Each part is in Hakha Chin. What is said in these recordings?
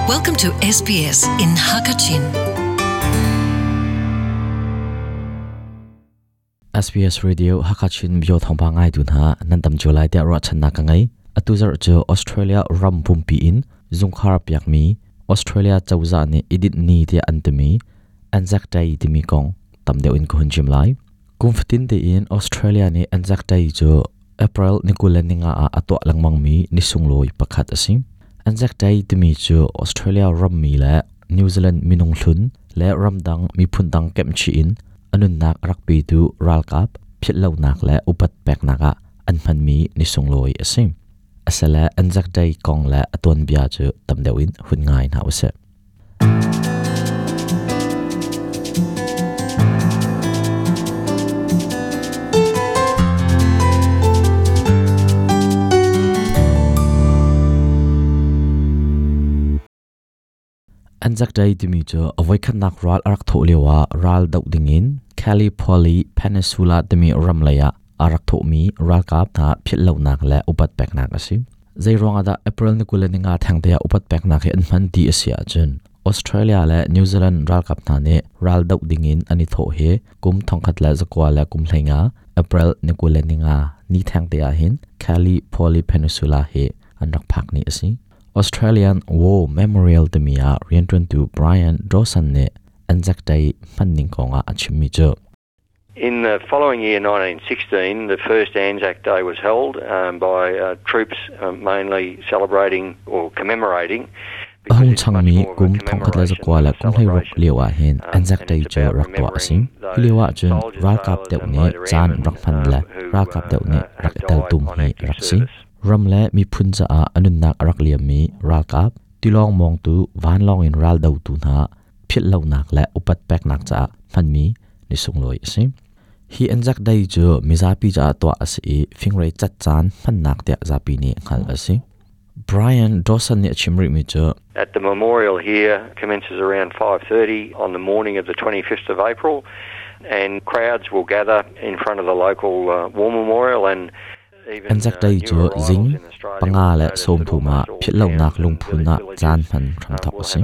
Welcome to SBS in Hakachin. SBS Radio Hakachin bio thawngpang ngai tu hna nan tam cio lai tiah ruahchannak ka ngei. Atu zarh cu Australia ram pumpi in zungkhar piakmi Australia cozah nih idit ni tiah an timi Anzac Day timi kong tam deuh in ka hun chim lai. Kum fatin tein Australia nih Anzac Day cu April ni 25 ah a tuah lengmangmi ni sunglawi pakhat a si. Anzac Day timi cu Australia rammi le New Zealand minung hlun le ramdang miphun dang kemhchih in a nunnak a rak petu ralkap philhlonak le upat peknak ah an hmanmi ni sunglawi a si. Asile Anzac Day kong le a tuanbia cu tam deuh in hun ngai hna usih. Anzac Day timi cu a voikhatnak ral a rak thawh lioah ral doh dingin Gallipoli Peninsula timi ram lei ah a rak thawhmi ralkap hna philhlonak le upat peknak a si. Zeiruang ah dah April ni 25 thengte ah upat peknak hi an hman ti a si ahcun Australia le New Zealand ralkap hna nih ral doh dingin an i thawh hi kum 1915 April ni 25 ni thengte ah hin Gallipoli Peninsula hi an rak phak ni a si. Australian War Memorial timi ah rianṭuantu Brian Dawson nih Anzac Day hmanning kongah a chimmi cu In the following year, 1916, the first Anzac Day was held um, by uh, troops um, mainly celebrating or commemorating A hung changmi kum 1916 lio ah hin Anzac Day cu rak tuah a si. Hi lio ah cun ralkap deuh nih caan rak hman le ralkap deuh nih rak i teltum hi a rak si. Ram le miphun caah a nunnak a rak liammi ralkap, tilawng mawngtu, vanlawng in ral dotu hna philhlonak le upat peknak caah hmanmi ni sunglawi a si. Hi Anzac Day cu mizapi caah tuah a si i fingrei cat caan hmannak tiah zapi nih hngalh a si. Brian Dawson nih a chim rihmi cu At the memorial here commences around 5:30 on the morning of the 25th of April and crowds will gather in front of the local uh, war memorial and Anzac Day cu zing 5:30 ah philhlonak lungphun ah caan hman hramthawk a si.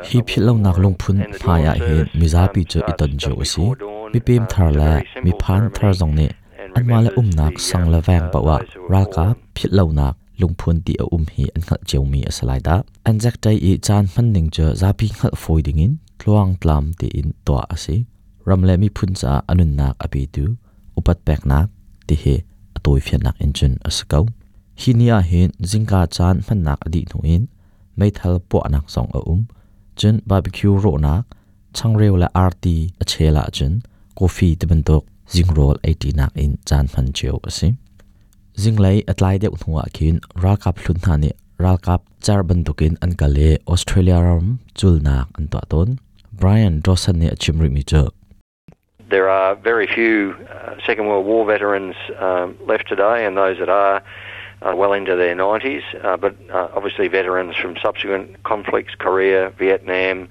Hi philhlonak lungphun hmai ah hin mizapi cu i ton cio a si. Mipem thar le miphan thar zong nih anmah le umnak sang le veng paoh ah ralkap philhlonak lungphun ti a um hi an hngalh ciomi a si lai dah. Anzac Day i caan hmanning cu zapi hngalh fawi dingin tluangtlam tein tuah a si. Ram le miphun caah a nunnak a petu upat peknak ti hi a tawifiannak in cun a si ko. Hi ni ah hin zingka caan hmannak a dih hnu in meithal puahnak zong a um. Cun barbecue rawhnak, changreu le arti a chel ahcun coffee ti bantuk zingrawl eiṭinak in caan hman cio a si. Zinglei a tlai deuh hnu ah khin ralkap hlun hna nih ralkap cer bantukin an kal i Australia ram culnak an tuah tawn. Brian Dawson nih a chim rihmi cu There are very few uh, Second World War veterans um, left today, and those that are are well into their 90s. Uh, but uh, obviously, veterans from subsequent conflicts, Korea, Vietnam,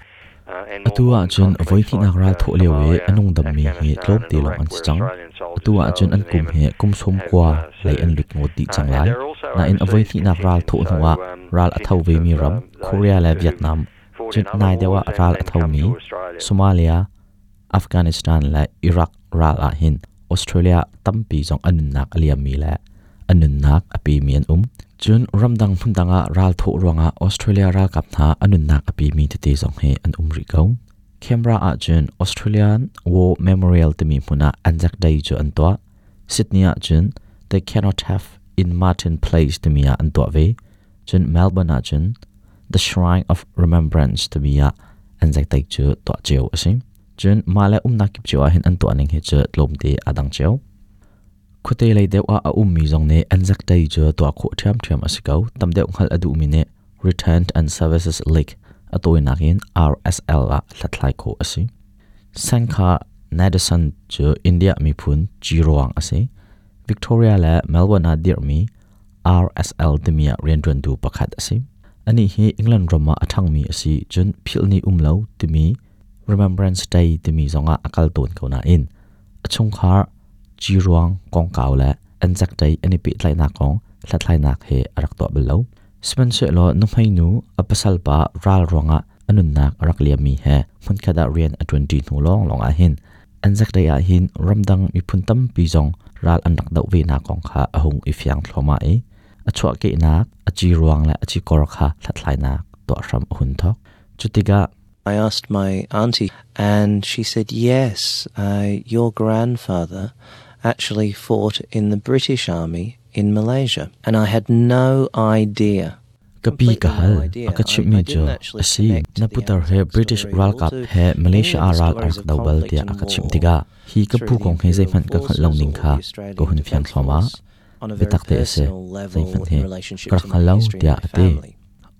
Atu ahcun voihnihnak ral thawh lio i a nungdammi hi tlawmte lawng an si cang. Atu ahcun an kum hi kum 90 lei an lut ngawt dih cang lai. Nain a voihnihnak ral thawh hnuah ral a tho vemi ram Korea le Vietnam, cun nai deuh ah ral a thomi Somalia, Afghanistan le Iraq ral ah hin Australia tampi zong an nunnak a liammi le an nunnak a pemi an um. Cun ramdang hmundang ah ral thawh ruangah Australia ralkap hna an nunnak a pemi tete zong hi an um rih ko. Canberra ah cun Australian War Memorial timi hmun ah Anzac Day cu an tuah. Sydney ah cun The Cenotaph in Martin Place timi ah an tuah ve. Cun Melbourne ah cun The Shrine of Remembrance timi ah Anzac Day cu tuah cio a si. Cun mah le umnak kip cio ah hin an tuah ning hi cu tlawmte aa dang cio. Khuate lei deuh ah a ummi zong nih Anzac Day cu tuah khawh ṭhiamṭhiam a si ko. Tam deuh hngalh a duhmi nih Return and Services League a tawinak in RSL ah hlathlai khawh a si. Sankha Nadesan cu India miphun ciruang a si. Victoria le Melbourne ah dirhmi RSL timi ah rianṭuantu pakhat a si. Anih hi England ram ah a ṭhangmi a si cun philhni um lo timi Remembrance Day timi zongah a kal tawn ko nain a chungkhar ciruang kongkau le Anzac Day an i pehtlaihnak kong hlathlainak he a rak tuah bal lo. Sihmanhsehlaw nuhmei nu a pasal pa ral ruangah a nunnak a rak liammi he hmunkhat ah rian a ṭuanṭi hnu lawnglawng ah hin Anzac Day ah hin ramdang miphun tampi zong ral an rak doh venak kong kha a hung i fiang thluahmah i a chuahkehnak a ci ruang le a cikor kha hlathlainak tuah hram a hun thawk. Cutikah I asked my auntie, and she said, Yes, your grandfather actually fought in the British Army in Malaysia. And I had no idea. Ka pi ka hal, a ka chimhmi cu a si, na putar he British ralkap he Malaysia ah ral a rak do bal tiah a ka chimh tikah hi ka pu kong hi zeihmanh ka hngalh lo ning kha ka hun fiang thluahmah. Biatak te a si, zeihmanh hi ka rak hngal lo tiah a ti.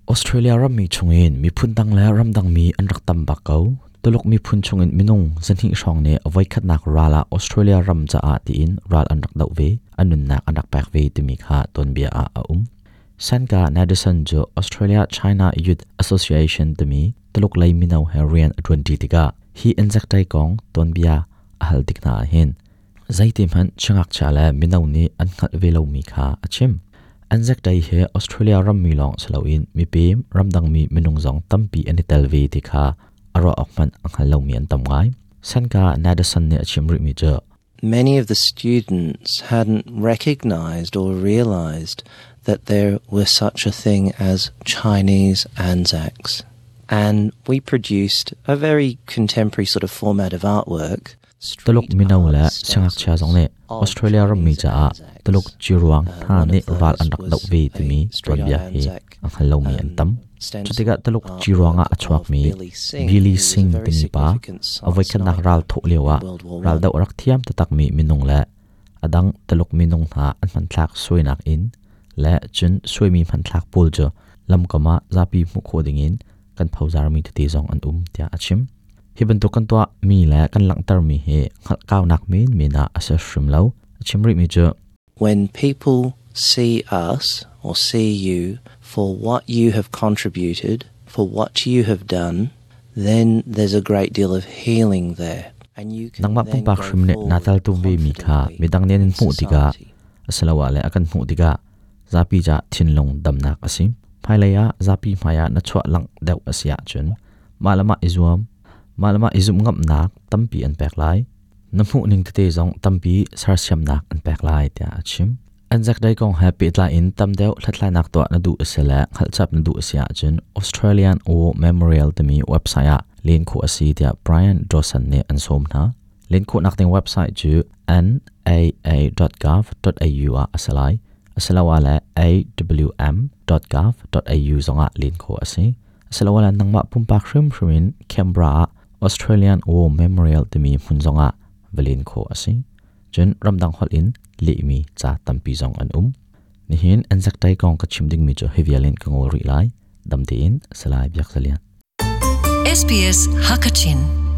Australia rammi chungin miphun dang le ramdang mi an rak tam bak ko. Tuluk miphun chungin minung zahnih hrawng nih a voikhatnak ral ah Australia ram caah tiin ral an rak doh ve, an nunnak an rak pek ve timi kha tuanbia ah a um. Sanka Nadison cu Australia China Youth Association timi Tuluk lei mino he rian a ṭuanṭi tikah hi Anzac Day kong tuanbia a hal tik hna ahhin zeiti hmanh siangngakchia le mino nih an hngalh ve lomi kha a chim. Anzac Day hi Australia rammi lawng si loin mipem ramdangmi minung zong tampi an i tel ve ti kha a ruah awk hmanh a hngal lomi an tam ngai. Sanka Nadison nih a chim rihmi cu Many of the students hadn't recognized or realized that there was such a thing as Chinese Anzacs. And we produced a very contemporary sort of format of artwork. Tuluk mino le siangngakchia zong nih Australia rammi caah Tuluk ciruang hna nih ral an rak doh ve timi tuanbia hi a hngal lomi an tam. Cutikah Tuluk ciruang ah a chuakmi Billy Singh timi pa a voikhatnak ral thawh lioah raldoh a rak thiam taktakmi minung le a dang Tuluk minung hna an hmanthlak suainak in le cun suaimi hmanthlak pawl cu lamkam ah zapi hmuh khawh dingin kan phozarmi tete zong an um tiah a chim. Hi bantuk kan tuahmi le kan langhtermi hi hngalhkaunak menmen ah a si hrim lo. A chim rihmi cu When people see us or see you for what you have contributed, for what you have done, then there's a great deal of healing there. Nangmah pumpak hrim nih naa teltum vemi kha midang nih an in hmuh tikah asiloah le a kan hmuh tikah zapi ca thinlung damnak a si. Hmailei ah zapi hmaiah na chuah langh deuh a si ahcun mah le mah i zuam, mah le mah i zumh ngamnak tampi an pek lai. Na hmuhning tete zong tampi sersiamnak an pek lai tiah a chim. Anzac Day kong he pehtlai in tam deuh hlathlainak tuah na duh a si le hngalhchap na duh a si ahcun Australian War Memorial timi website ah len khawh a si tiah Brian Dawson nih an sawm hna. Len khawhnak ding website cu naa.gov.au ah a si lai. Asiloah le awm.gov.au zongah len khawh a si. Asiloah le nangmah pumpak hrimhrim in Canberra ah Australian War Memorial timi hmun zongah va len khawh a si. Cun ramdang holh in lehmi ca tampi zong an um. Nihin Anzac Day kong ka chim dingmi cu hi vial in ka ngol rih lai. Dam tein Salai Biak Zalian. SBS Hakachin.